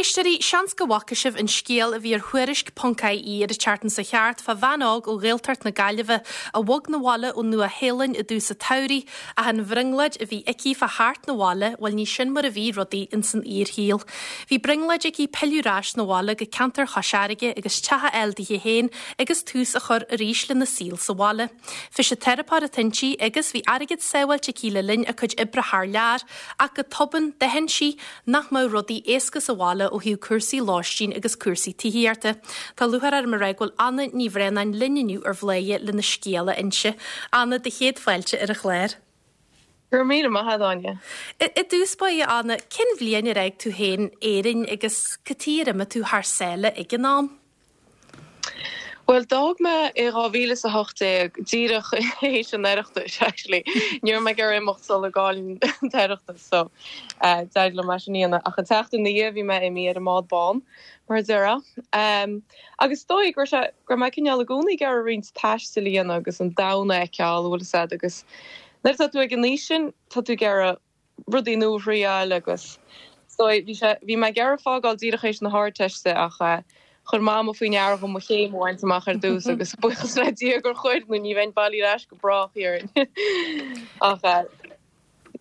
éisteoirí, seans go bhfaca sibh an scéal a bhí ar Thuairisc ponc IE ar an tseachtain seo thart fá bhean óg ó Ghaeltacht na Gaillimhe a bhog 'na bhaile ón Nua Shéalainn i dtús an tsamhraidh ach an bhrionglóid a bhí aici fá theacht 'na bhaile, bhuel ní sin mar a bhí rudaí ins an fhíorshaol. Bhí brionglóid aici pilleadh ar ais 'na bhaile go ceantar Chois Fharraige agus teach a fháil dithe féin agus tús a chur arís lena saol sa bhaile. Fisiteiripeoir atá inti agus bhí airgead sábháilte aici le linn a cuid oibre thar lear ach go tobann d'aithin sí nach mbeadh rudaí éasca sa bhaile ó thaobh cúrsaí lóistín agus cúrsaí tithíochta. Tá lúcháir orm a rá go bhfuil Anna Ní Bhraonáin linn inniu ar Bhladhaire lena scéal a inse. Anna, do chéad fáilte ar an chlár. Go raibh míle maith agat, Áine. I dtús báire, Anna, cén bhliain ar fhág tú féin Éirinn agus cad chuige ar imigh tú thar sáile ag an am? Bhuel, d'fhág mé i 2018, díreach théis an Oireachtais, actually. Ní raibh mé ag iarraidh imeacht sula gcaillfinn an tOireachtas, so d'éirigh liom é sin a dhéanamh. Ach an tseachtain ina dhiaidh, bhí mé imithe ar an mbád bán, mar a déarfá. Agus is dóigh go raibh sé, go raibh mé cineál i gcónaí ag iarraidh roinnt taistil a dhéanamh agus an domhan a fheiceáil, bhfuil fhios a'd, agus nuair atá tú ag an aois sin, tá tú ag iarraidh rudaí nua a thriáil agus is dóigh, bhí sé, bhí mé ag iarraidh fágáil díreach théis na hArdteiste ach chuir Mama faoi ndeara dhom mo chéim a bhaint amach ar dtús agus buíochas le Dia gur chuir nó ní bheinn bailithe ar ais go brách dhéarfainn. Ach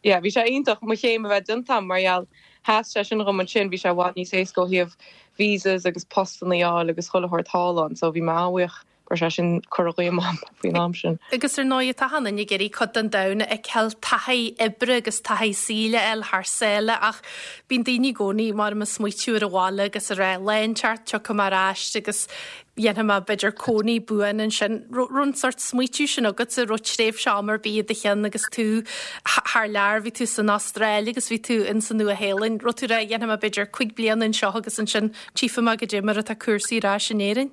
yeah, bhí sé iontach mo chéim a bheith déanta agam mar gheall sheas sé sin dhom ansin, bhí sé i bhfad níos éasca ó thaobh visas agus postanna a fháil agus chuile shórt thall ann so bhí mé an-bhuíoch go raibh sé sin curtha dhíom agam faoin am sin. Agus ar ndóigh, tá achan duine ag iarraidh cuid den domhan a fheiceáil, taithí oibre agus taithí saoil a fháil thar sáile ach bíonn daoine i gcónaí mar ag smaoitiú ar an bhaile agus ag rá lá inteacht tiocfaidh mé ar ais agus dhéanfaidh mé b'fhéidir cónaí buan ansin. Raibh an sórt smaoitiú sin agatsa, raibh tréimhse ama ar bith i do cheann agus tú thar lear, bhí tú san Astráil agus bhí tú in sa Nua-Shéalainn, raibh tú ag rá dhéanfaidh mé b'fhéidir cuig bliana anseo agus ansin tchífidh mé goidé mar atá cúrsaí ar ais in Éirinn?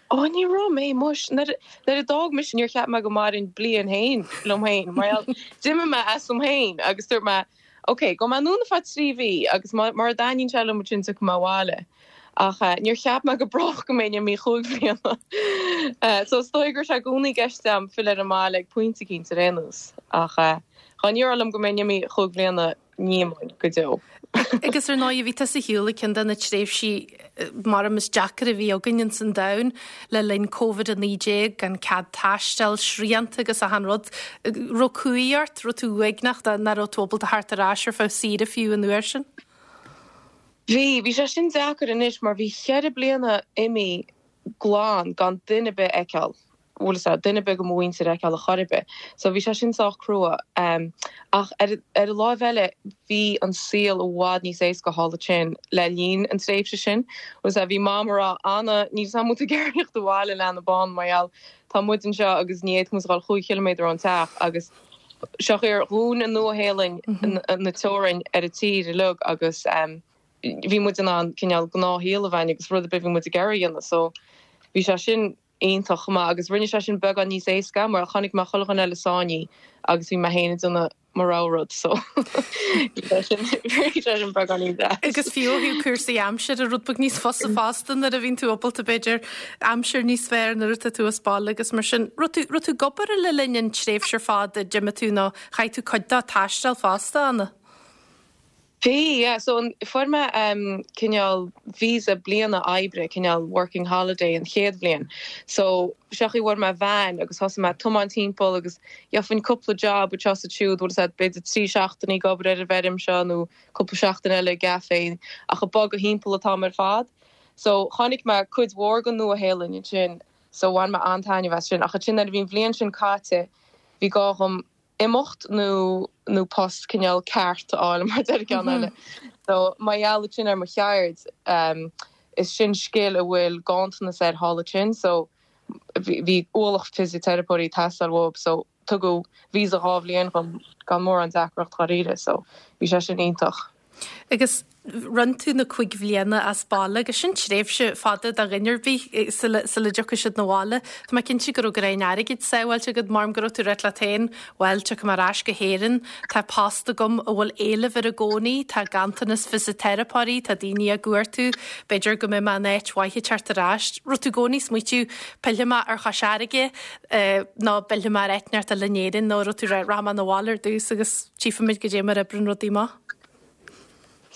Ó, ní raibh mé, muis. Nuair a d'fhág mise níor cheap mé go mairfinn bliain féin liom féin. Mar gheall, d'imigh mé asam féin agus dúirt mé, ok, gabhfaidh mé anonn ar feadh 3 mhí agus mura dtaitníonn sé liom ansin tiocfaidh mé abhaile. Ach níor cheap mé go brách go mbeinn imithe chúig bhliana. So is dóigh go raibh sé i gcónaí i gceist agam filleadh ar an mbaile ag pointe eicínt ar aon nós. Ach dá ndéarfá liom go mbeinn imithe chúig bhliana, ní imeoinn go deo. Agus ar ndóigh, bhí tusa ar shiúl ag ceann de na tréimhsí maram is deacair a bhí againn ins an domhan le linn Covid-19, gan cead taistil, srianta agus achan rud. Raibh cumhaidh ort, raibh tú uaigneach nach raibh tú ábalta theacht ar ais ar feadh saoire fiú an uair sin? Bhí, bhí sé sin deacair anois mar bhí cheithre bliana imithe glan gan duine ar bith a fheiceáil. bhfuil fhios a'd, duine ar bith de mo mhuintir a fheiceáil ar chor ar bith. So bhí sé sin sách crua. Ach ar ar an láimh eile bhí an saol i bhfad níos éasca thall ansin le linn an tréimhse sin. Bhfuil fhios a'd, bhí Mam a rá, Anna, níl 'fhios a'm an bhfuil tú ag iarraidh theacht abhaile leanbh bán mar gheall tá muid anseo agus ní fhéadfadh muid a dhul chúig chiliméadar ón teach agus seo ar dhún an Nua-Shéalainn na teorainn ar an tír uilig agus bhí muid in ann cineál gnáthshaol a bheith againn agus rud ar bith bhí muid ag iarraidh a dhéanamh. So bhí sé sin iontach chomh maith agus rinne sé sin beagán níos éasca mar chonaic mé chuile dhuine eile sáinnithe agus bhí mé féin ag déanamh mo rogha rud so bhí sé sin bhí sé sin beagán níos deas. Agus fiú ó thaobh cúrsaí aimsire rud beag níos fusa fosta nuair a bhíonn tú ábalta b'fhéidir aimsir níos fearr nuair atá tú as baile agus mar sin. Raibh tú raibh tú ag obair le linn an tréimhse ar fad a d'imigh tú nó chaith tú cuid dó ag taisteal fosta, Anna? Bhí, yeah. So an, fuair mé em cineál visa bliana oibre, cineál working holiday an chéad bhliain. So seo chaoi bhfuair mé veain agus thosaigh mé ag tiomáint timpeall agus gheofainn cúpla job anseo is ansiúd, bhfuil fhios a'd, b'fhéidir 3 seachtainí ag obair ar an bhfeirm seo nó cúpla seachtain eile i gcafé ach ag bogadh thimpeall an t-am ar fad. So chonaic mé cuid mhór den Nua-Shéalainn ansin so bhain mé an-taitneamh as sin. Ach ansin nuair a bhí an bhliain sin caite bhí gá dhom imeacht nó nó post cineál ceart a fháil mar deir ceann eile. So mar gheall ansin ar mo cheird is sin scil a bhfuil ganntanas air thall ansin so bhí ualach fisiteiripeoirí ag teastáil uathu so tugadh visa 2 bhliain dhom gan mórán deacracht dháiríre so bhí sé sin iontach. Agus rinne tú na cuig bhliana as baile agus sin tréimhse fada do dhuine ar bith sula dtiocfaidh siad 'na bhaile. Tá mé cinnte go raibh greim airgid sábháilte agat, maram go raibh tú ag ráit leat féin, bhuel, tiocfaidh mé ar ais go hÉirinn, tá post agam a bhfuil éileamh air i gcónaí, tá ganntanas fisiteiripeoirí, tá daoine á gcuartú, b'fhéidir go mbeidh mé in áit mhaith ag teacht ar ais. Raibh tú i gcónaí ag smaoitiú, pillfidh mé ar Chois Fharraige nó pillfidh mé ar áit inteacht eile in Éirinn nó raibh tú ag rá, rachaidh mé 'na bhaile ar dtús agus tchífimid goidé mar a oibreann rudaí amach.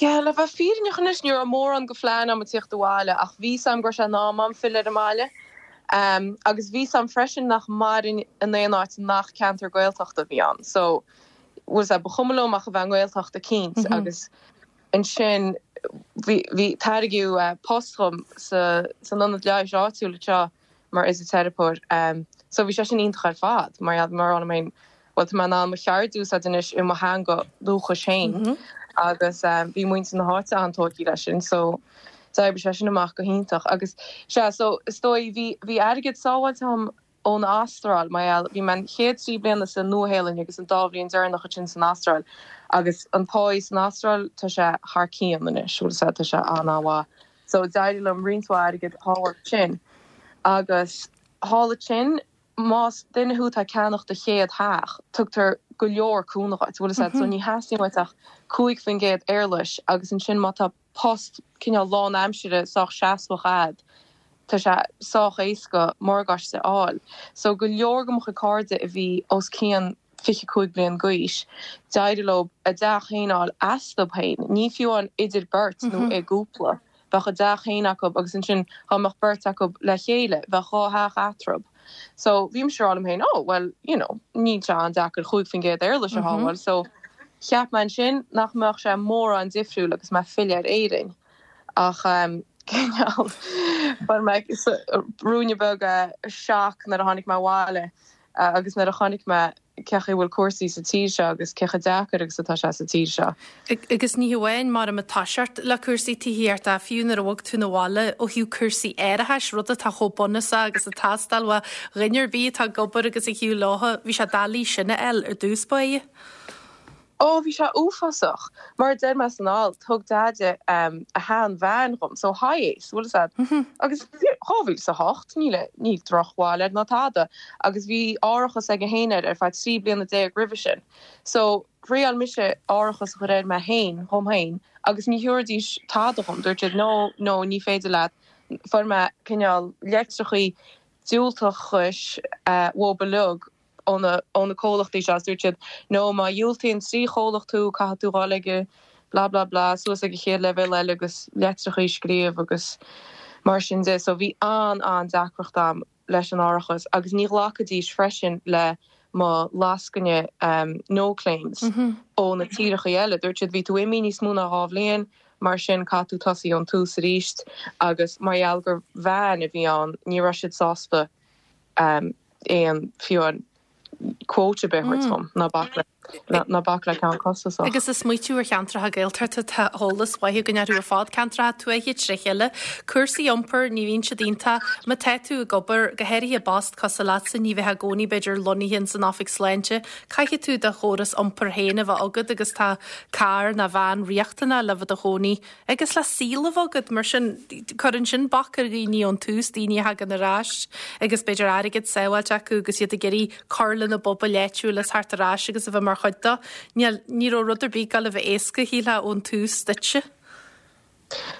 Yeah, le bheith fírinneach anois, ní raibh mórán de phlean agam tíocht abhaile ach bhí 's agam go raibh sé in am agam filleadh ar an mbaile. Agus bhí 's agam freisin nach mairfinn in aon áit nach ceantar Gaeltachta a bhí ann. So, bhfuil 's a'd, ba chuma liom ach a bheith i nGaeltacht eicínt agus ansin bhí, bhí, tairgeadh post dhom sa, san ionad leighis áitiúil anseo mar fhisiteiripeoir. So bhí sé sin iontach ar fad mar gheall, mar a rá liom féin, bhuel tá mé in ann mo cheird a úsáid anois i mo theanga dúchais féin agus bhí muintir na háite an-tógtha leis sin so d'oibrigh sé sin amach go hiontach agus sea so is dóigh bhí bhí airgead sábháilte agam ón Astráil mar gheall bhí mé an chéad 3 bliana sa Nua-Shéalainn agus an dá bhliain deireanach ansin san Astráil agus an páí san Astráil tá sé thar cionn anois bhfuil 'fhios a'd tá sé an-an-mhaith so d'éirigh liom roinnt mhaith airgid a shábháil ansin agus thall ansin Más duine thú atá ag ceannach do chéad theach, tugtar go leor cúnamh dhuit, bhfuil 'fhios a'd, so ní theastaíonn uait ach 5% éarlais agus ansin má tá post cineál lán-aimsire sách seasmhach a'd, tá sé sách éasca morgáiste a fháil. So go leor de mo chuid cairde a bhí os cionn 25 bliain d'aois, d'éirigh leo a dteach féin a fháil astu féin, ní fiú amháin idir beirt nó i gcúpla, bheadh a dteach féin acu agus ansin dá mbeadh beirt acu le chéile, bheadh dhá theach eatarthu. So bhí mise ag rá liom féin, oh well, you know, níl sé an-deacair 5% éarlais a shábháil, so cheap mé ansin nach mbeadh sé mórán difriúil agus mé ag filleadh ar Éirinn. Ach cineál, fuair mé ruainne beag shock nuair a tháinig mé abhaile. Agus nuair a chonaic mé cé chaoi a bhfuil cúrsaí sa tír seo agus cé chomh deacair agus atá sé sa tír seo. Agus ní hamháin mar ag toiseacht le cúrsaí tithíochta, fiú nuair a bhog tú 'na bhaile ó thaobh cúrsaí árachais, rud atá chomh bunúsach agus ag teastáil ó dhuine ar bith atá ag obair agus ag shiúl leotha, bhí sé doiligh sin a fháil ar dtús báire. Ó, bhí sé uafásach. Mar a deir mé san alt, thug Deaide a shean-veain dhom, so Hiace, bhfuil 'fhios a'd. Agus 2008, níl, níl drochbhail air ná tada. Agus bhí árachas aige féin air ar feadh 13 bliana roimhe sin. So, thriáil mise árachas a chur air mé féin, dhom féin, agus ní thabharfaidís tada dhom. Dúirt siad, no, no, ní féidir leat. Fuair mé cineál leitreachaí diúltachais uathu uilig. ó na comhlachtaí seo agus dúirt siad no má dhiúltaíonn 3 chomhlacht thú caithfidh tú dhul ag blah blah blah suas ag an chéad leibhéal eile agus leitreachaí a scríobh agus mar sin de. So bhí an-an-deacracht a'm leis an árachas agus ní ghlacfaidís freisin le mo lascaine no claims ó na tíreachaí eile. Dúirt siad bhí tú imithe níos mó ná 2 bhliain mar sin caithfidh tú tosaí ón tús arís agus mar gheall gur veain a bhí ann ní raibh siad sásta aon, fiú amháin quote ar bith a thabhairt dhom, ná bac le, ná bac le ceann costasach. Agus ag smaoitiú ar cheantracha Gaeltachta, tá eolas mhaith againn orthu ar fad, ceantracha tuaithe tré chéile, cúrsaí iompair, ní bhíonn siad iontach, má tá tú ag obair, go háirithe i bpost cosúil leatsa, ní bheifeá i gcónaí b'fhéidir lonnaithe ins an oifig sláinte, caithfidh tú do chóras iompair féin a bheith agat agus tá carr nó veain riachtanach le bheith i do chónaí Agus le saol a bheith agat, mar sin, cuireann sin bac ar dhaoine ón tús, daoine a thagann ar ais agus b'fhéidir airgead sábháilte acu agus iad ag iarraidh cur lena bpobail áitiúil is theacht ar ais agus a bheith mar chuid dó. Níl, ní raibh rud ar bith ag gabháil a bheith éasca, shílfeá, ón tús duitse.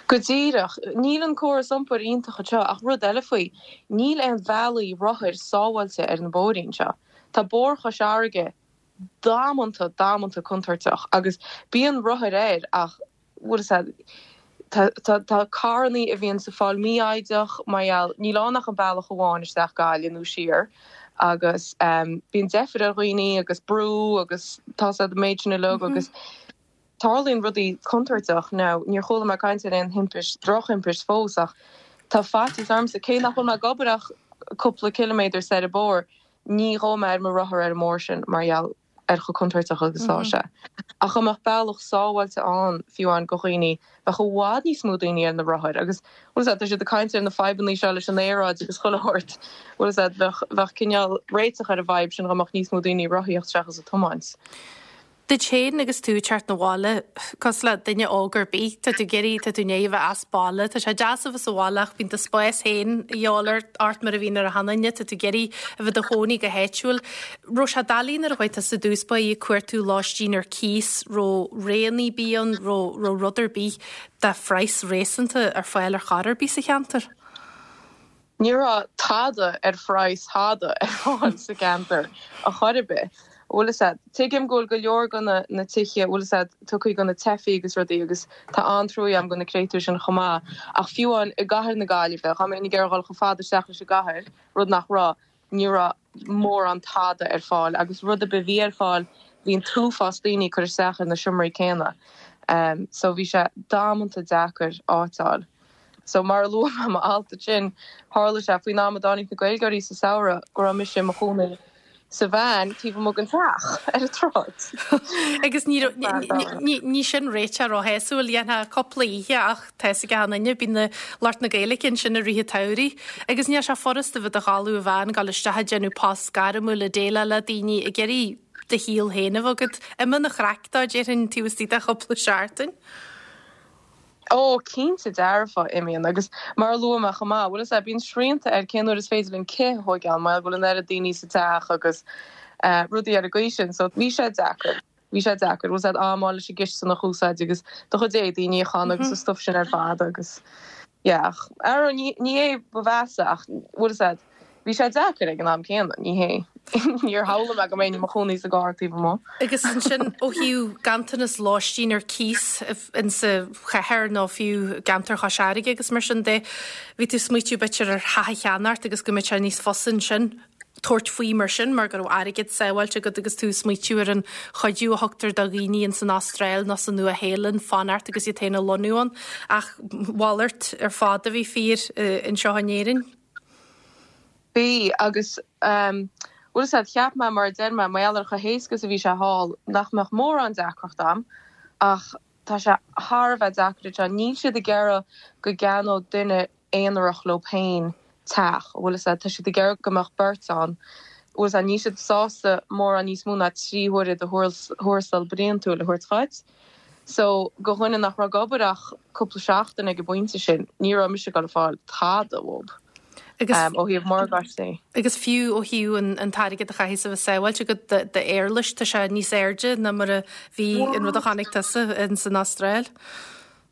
Go díreach. Níl an córas iompair iontach anseo ach rud eile faoi, níl aon bhealaí rothair sábháilte ar na bóithrí anseo. Tá Bóthar Chois Fharraige damanta, damanta contúirteach agus bíonn rothair air ach bhfuil 'fhios a'd, tá, tá, tá carrannaí a bhíonns ag fáil mífhoighdeach mar gheall, níl ann ach an bealach amháin isteach Gaillimh nó siar agus bíonn deifir ar dhaoine agus brú agus tá 'fhios a'd an méid sin uilig agus tarlaíonn rudaí contúirteach. Now, níor chuala mé caint ar aon thimpist, drochthimpist fós ach tá faitíos ormsa, cé nach bhfuil mé ag obair ach cúpla ciliméadar soir an bóthar, ní ghabhfaidh mé ar mo rothar ar an mbóthar sin mar gheall ar chomh contúirteach agus atá sé. Ach dá mbeadh bealach sábháilte ann, fiú amháin do dhaoine, bheadh i bhfad níos mó daoine ar na rothair agus, bhfuil 'fhios a'd, tá siad ag caint ar na fadhbannaí seo leis an aeráid agus chuile shórt, bhfuil 'fhios a'd, bheadh, bheadh cineál réiteach ar an bhfadhb sin dá mbeadh níos mó daoine ag rothaíocht seachas ag tiomáint. Duit féin agus tú ag teacht 'na bhaile, cosúil le duine óg ar bith, tá tú ag iarraidh, tá tú i ndiaidh a bheith as baile, tá sé deas a bheith sa bhaile ach bíonn do spás féin a dhíobháil ort mar a bhíonn ar achan duine, tá tú ag iarraidh a bheith i do chónaí go háitiúil. Raibh sé doiligh nuair a chuaigh tusa i dtús báire ag cuartú lóistín ar cíos, raibh roghanna ar bith ann, raibh, raibh rud ar bith de phraghas réasúnta ar fáil ar chor ar bith sa cheantar? Ní raibh tada ar phraghas thada ar fáil sa cheantar a chor ar bith. Bhfuil fhios a'd. Tuigim go bhfuil go leor go na na tithe, bhfuil fhios a'd, tugtha go na teifigh agus rudaí agus tá an-truaighe a'm go na créatúir sin chomh maith. Ach fiú amháin i gcathair na Gaillimhe, dá mbeinn ag iarraidh dhul chomh fada isteach leis an gcathair, rud nach raibh, ní raibh mórán tada ar fáil agus rud ar bith a bhí ar fáil bhí an t-uafás daoine ag cur isteach ar na seomraí céanna. So bhí sé damanta deacair áit a fháil. So mar a luaigh mé i m'alt ansin, tharla sé faoin am a dtáinig na Gaeilgeoirí sa samhradh go raibh mise i mo chónaí sa veain taobh amuigh den teach ar an tsráid. Agus ní raibh, ní sin réiteach róshásúil, dhéanfá cúpla oíche ach tá fhios ag achan duine, bíonn na lucht na Gaeilge ansin i rith an tsamhraidh. Agus níl sé furasta bheith i do chodladh i veain, dul isteach ag déanamh post gairmiúil, ag déileáil le daoine, ag iarraidh do shaol féin a bheith agat. Imíonn an chraic dó, déarfainn, taobh istigh de chúpla seachtain. Ó, cinnte dearfa, imíonn. Agus mar a luaigh mé chomh maith, bhfuil fhios a'd, bíonn srianta ar cén uair is féidir linn cith a thóigeáil mar go bhfuil an oiread daoine sa teach agus rudaí ar an gcaoi sin. So, bhí sé deacair. Bhí sé deacair. Bhfuil fhios a'd, am a fháil leis an gcistin a úsáid agus do chuid éadaí a níochán agus an stuif sin ar fad agus yeah. Ach, arú, ní, ní hé ba mheasa ach, bhfuil fhios a'd, Bhí sé deacair ag an am céanna, ní hé. Níor shamhlaigh mé go mbeinn i mo chónaí sa gcarr taobh amuigh. Agus ansin ó thaobh ganntanas lóistín ar cíos insa chathair nó fiú i gceantar Chois Fharraige agus mar sin de, bhí tú ag smaoitiú b'fhéidir ar theach a cheannacht agus go mbeadh sé níos fusa ansin tabhairt faoi mar sin mar go raibh airgead sábháilte agat agus tú ag smaoitiú ar an chuidiú a thugtar do dhaoine ins an Astráil nó sa Nua Shéalainn fanacht agus iad féin a lonnú ann. Ach mhalairt ar fad a bhí fíor anseo in Éirinn. Bhí, agus bhfuil fhios a'd, cheap mé, mar a deir mé, mar gheall ar chomh héasca is a bhí sé thall, nach mbeadh mórán deacracht a'm, ach tá sé thar a bheith deacair anseo. Níl siad ag iarraidh go gceannódh duine aonarach leo féin teach, bhfuil fhios a'd, tá siad ag iarraidh go mbeadh beirt ann, bhfuil fhios a'd, níl siad sásta mórán níos mó ná 3 huaire de thuarastal bliantúil a thabhairt dhuit. So, go dhuine nach raibh ag obair ach cúpla seachtain ag an bpointe sin, ní raibh mise ag dul a fáil tada uathub, Agus, ó thaobh morgáistí. agus fiú ó thaobh an, an t-airgead a chaithfeas a bheith sábháilte agat d'éarlais, tá sé níos airde ná mar a bhí an rud a chonaic tusa in san Astráil.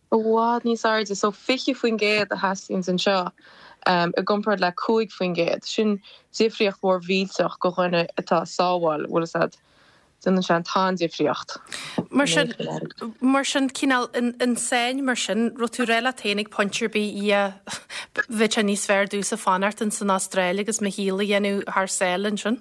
I bhfad níos airde, so 20% a theastaíonns anseo, i gcomparáid le 5%. Sin difríocht mhór mhillteach go dhuine atá ag sábháil, bhfuil fhios a'd. Déanann sé an-difríocht. Mar sin, mar sin, cineál an sáinn mar sin, raibh tú ag rá leat féin ag pointe ar bith, yeah, bheadh sé níos fearr domhsa fanacht in san Astráil agus mo shaol a dhéanamh thar sáile ansin?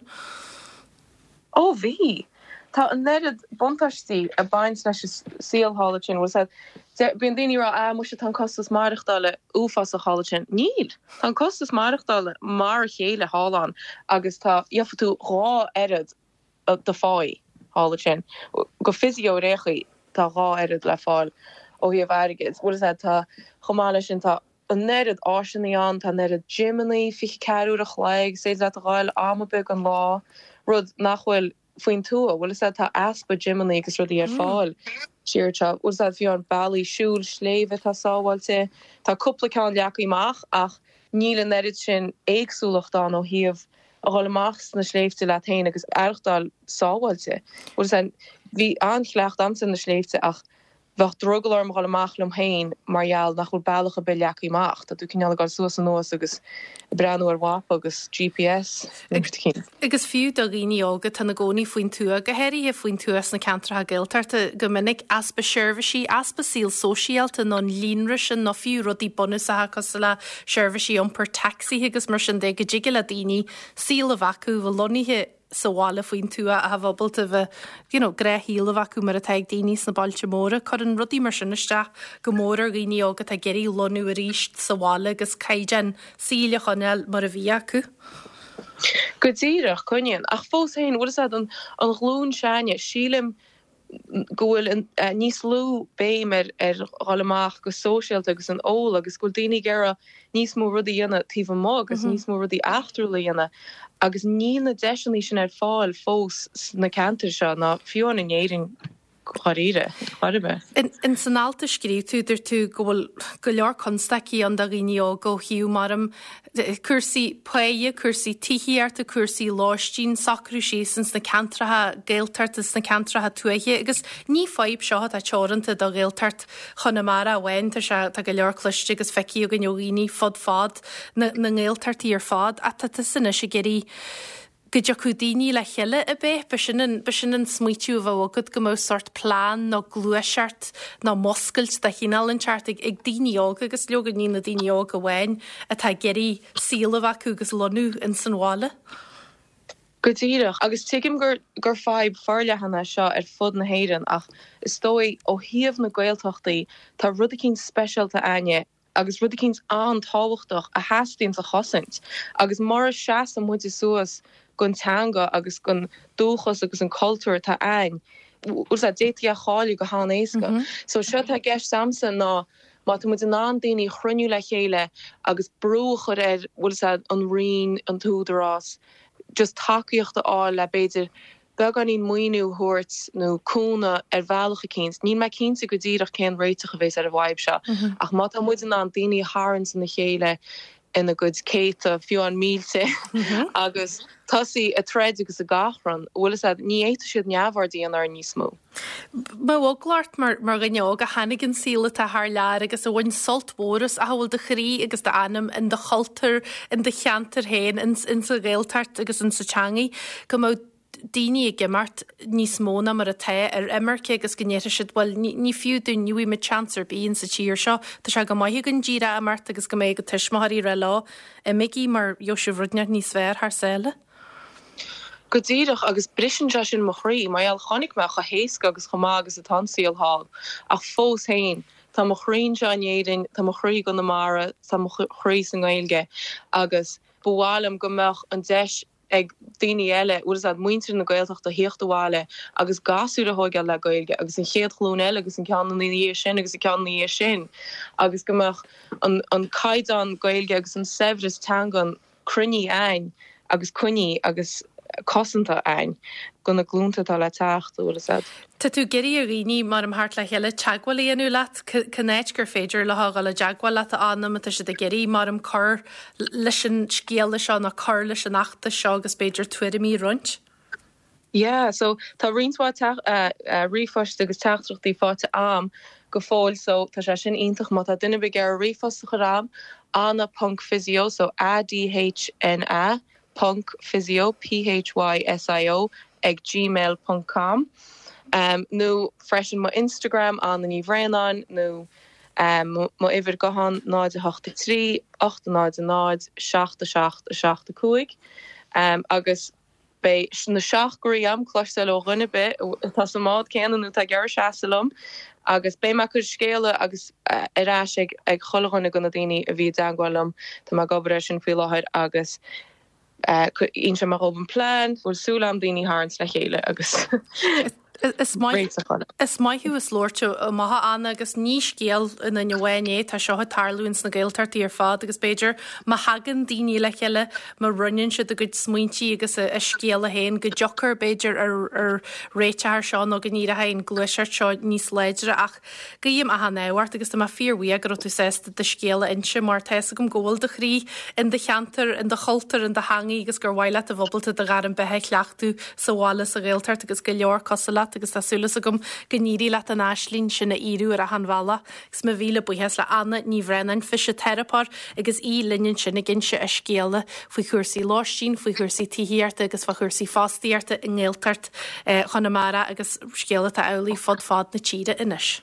Ó bhí. Tá an oiread buntáistí ag baint leis an saol thall ansin. Bhfuil fhios a'd, bíonn daoine ag rá, ah muise tá an costas maireachtála uafásach thall ansin. Níl! Tá an costas maireachtála mar a chéile thall ann agus tá, gheobhaidh tú dhá oiread do pháí thall ansin. Go physio ar aon chaoi tá dhá oiread le fáil ó thaobh airgid. Bhfuil fhios a'd, tá, chomh maith leis sin tá an oiread áiseanna ann, tá an oiread gymeanna 24 uair a chloig, is féidir leat a ghabháil am ar bith den lá, rud nach bhfuil faoin tuath. Bhfuil fhios a'd, tá easpa gymeanna agus rudaí ar fáil siar anseo. Bhfuil fhios a'd, fiú amháin bealaí siúil sléibhe atá sábháilte, tá cúpla ceann leagtha amach ach níl an oiread sin éagsúlacht ann ó thaobh a dhul amach sna sléibhte leat féin agus aireachtáil sábháilte. Bhfuil fhios a'd, bhí an-chleachtadh a'msa ar na sléibhte ach bheadh drogall orm a dhul amach liom féin mar gheall nach bhfuil bealach ar bith leagtha amach. Tá tú cineál ag dul suas anuas agus ag breathnú ar mhapa agus GPS nó rud eicínt. Agus fiú do dhaoine óga atá ina gcónaí faoin tuath, go háirithe faoin tuath sna ceantracha Gaeltachta, go minic, easpa seirbhísí, easpa saol sóisialta nó an líonra sin nó fiú rudaí bunúsacha cosúil le seirbhísí iompair tacsaithe agus mar sin de, go dtig le daoine saol a bheith acu, bheith lonnaithe sa bhaile faoin tuath ach a bheith ábalta bheith, you know, gnáthshaol a bheith acu mar atá ag daoine sna bailte móra. Cuireann rudaí mar sin isteach go mór ar dhaoine óga atá ag iarraidh lonnú arís sa bhaile agus caighdeán saoil a choinneáil mar a bhí acu. Go díreach, coinníonn. Ach fós féin, bhfuil fhios a'd, an ghlúin s'againne, sílim go bhfuil níos lú béim ar dhul amach go sóisialta agus an ól agus go bhfuil daoine ag iarraidh níos mó rudaí a dhéanamh taobh amuigh agus níos mó rudaí eachtrúla a dhéanamh agus níl na deiseanna sin ar fáil fós sna ceantair seo ná fiú amháin in Éirinn dháiríre, chor ar bith. In san alt a scríobh tú, dúirt tú go bhfuil go leor constaicí ann do dhaoine óga ó thaobh mar cúrsaí páighe, cúrsaí tithíochta, cúrsaí lóistín, socrú síos ins na ceantracha Gaeltachta, sna ceantracha tuaithe agus ní fadhb seo atá teoranta do Ghaeltacht Chonamara amháin, tá sé, tá go leor cloiste agus feicthe againn ó dhaoine fud fad na na nGaeltachtaí ar fad ach tá tusa anois ag iarraidh. Go dtiocfadh daoine le chéile ab é? B'shin an, b'shin an smaoitiú a bheadh agat, go mbeadh sórt plean nó gluaiseacht nó muscailt de chineál inteacht ag, ag daoine óga agus leoga ní na daoine óga amháin atá ag iarraidh saol a bheith acu agus lonnú ins an bhaile. Go díreach, agus tuigim gur, gur fadhb forleathan é seo ar fud na hÉireann ach is dóigh ó thaobh na Gaeltachtaí tá rud eicínt speisialta a'inne agus rud eicínt an-tábhachtach a theastaíonns a chosaint agus mura seasann muide suas gon teanga agus gon dúchas agus an cultúr atá a'ainn, bhfuil 's a'd, d'fhéadfaí é a chailleadh go han-éasca. So seo atá i gceist a'msa ná má tá muid in ann daoine a chruinniú le chéile agus brú a chur ar, bhfuil 's a'd, an Roinn, an tÚdarás, just tacaíocht a fháil le b'fhéidir beagáinín maoiniú a thabhairt nó cúnamh ar bhealach eicínt. Níl mé cinnte go díreach cén réiteach a bhéas ar an bhfadhb seo ach má tá muid in ann daoine a tharraingt ina chéile ina gcuid céadta, fiú amháin mílte, agus tosaí ag troid agus ag achrann, bhfuil fhios a'd, ní fhéadfaidh siad neamhaird a dhéanamh orainn níos mó. Mbeadh eagla ort mar dhuine óg a tháinig an saol atá thar lear agus a bhain sult mhór as ach a bhfuil do chroí agus d'anam in do chultúr, in do cheantar féin, ins an Ghaeltacht agus ins an teangaidh, go mbeadh daoine ag imeacht níos mó ná mar atá ar imirce agus go ndéarfaidh siad bhuel ní fiú dúinn, ní bhfaighidh muid seans ar bith insa tír seo, tá sé go maith againn díreach imeacht agus go mbeidh a tuismitheoirí ag rá leo imígí mar gheobhaidh sibh rud inteacht níos fearr thar sáile. Go díreach, agus briseann sé sin mo chroí, mar gheall, chonaic mé chomh héasca agus chomh maith agus atá an saol thall, ach fós féin, tá mo chroí anseo in Éirinn, tá mo chroí i gConamara, tá mo chroí sa nGaeilge, agus ba mhaith liom go mbeadh an deis ag daoine eile, bhfuil fhios a'd, muintir na Gaeltachta, thíocht abhaile agus gasúir a thóigeáil le Gaeilge, agus an chéad ghlúin eile agus an ceann ina dhiaidh sin agus an ceann ina dhiaidh sin, agus go mbeadh an an caighdeán Gaeilge agus an saibhreas teangan cruinnithe a'ainn agus coinnithe agus cosanta a'ainn go na glúnta atá le teacht, an bhfuil fhios a'd. Tá tú ag iarraidh ar dhaoine, maram, theacht le chéile, teagmháil a dhéanamh leat, cén áit gur féidir leo a dhul i dteagmháil leat, a Anna, má tá siad ag iarraidh, maram, cur leis an scéala seo nó cur leis an fheachtas seo agus b'fhéidir tuairimí a roinnt? Yeah, so tá roinnt mhaith ríomhphoist agus teachtaireachtaí faighte a'm go fóill so tá sé sin iontach má tá duine ar bith ag iarraidh ríomhphost a chur a'm, adhna ponc physio, so A-D-H-N-A ponc physio, P-H-Y-S-I-O, ag gmail ponc com nó freisin mo Instagram, Adhna Ní Bhraonáin nó mo uimhir guthán 0 8 3 8 0 0 7 7 7 5 agus Beidh na seacht gcroí a'm cloisteáil ó dhuine ar bith atá sa mbád céanna nó atá ag iarraidh seasamh liom agus beidh mé ag cur scéala agus ar ais ag ag chuile dhuine de na daoine a bhí i dteangmháil liom. Tá mé ag obair air sin faoi láthair agus inseoidh mé dhóibh an plean, bhfuil súil a'm daoine a tharraingt le chéile agus Is maith is maith thú as labhairt amach a Anna agus ní scéal i nduine amháin é, tá seo ag tarlú ins na Gaeltachtaí ar fad agus b'fhéidir má thagann daoine le chéile, má roinneann siad a gcuid smaointí agus a scéala féin go dtiocfar b'fhéidir ar ar réiteach ar seo nó go n-éireoidh an ghluaiseacht seo níos láidre ach Guím achan ádh ort agus tá mé fíorbhuíoch go raibh tú sásta do scéal a inse mar tá fhios agam go bhfuil do chroí in do cheantar, in do chultúr, in do theangaidh agus gur mhaith leat a bheith ábalta do ghairm beatha a chleachtadh sa bhaile sa Ghaeltacht agus go leor cosúil leat agus tá súil agam go n-éireoidh leat an aisling sin a fhíorú ar achan bhealach. Agus mo mhíle buíochas le Anna Ní Bhraonáin, fisiteiripeoir agus í linn ansin ag inse a scéala faoi chúrsaí lóistín, faoi chúrsaí tithíochta agus fá chúrsaí fostaíochta i nGaeltacht Chonamara agus scéal atá amhlaidh fud fad na tíre anois.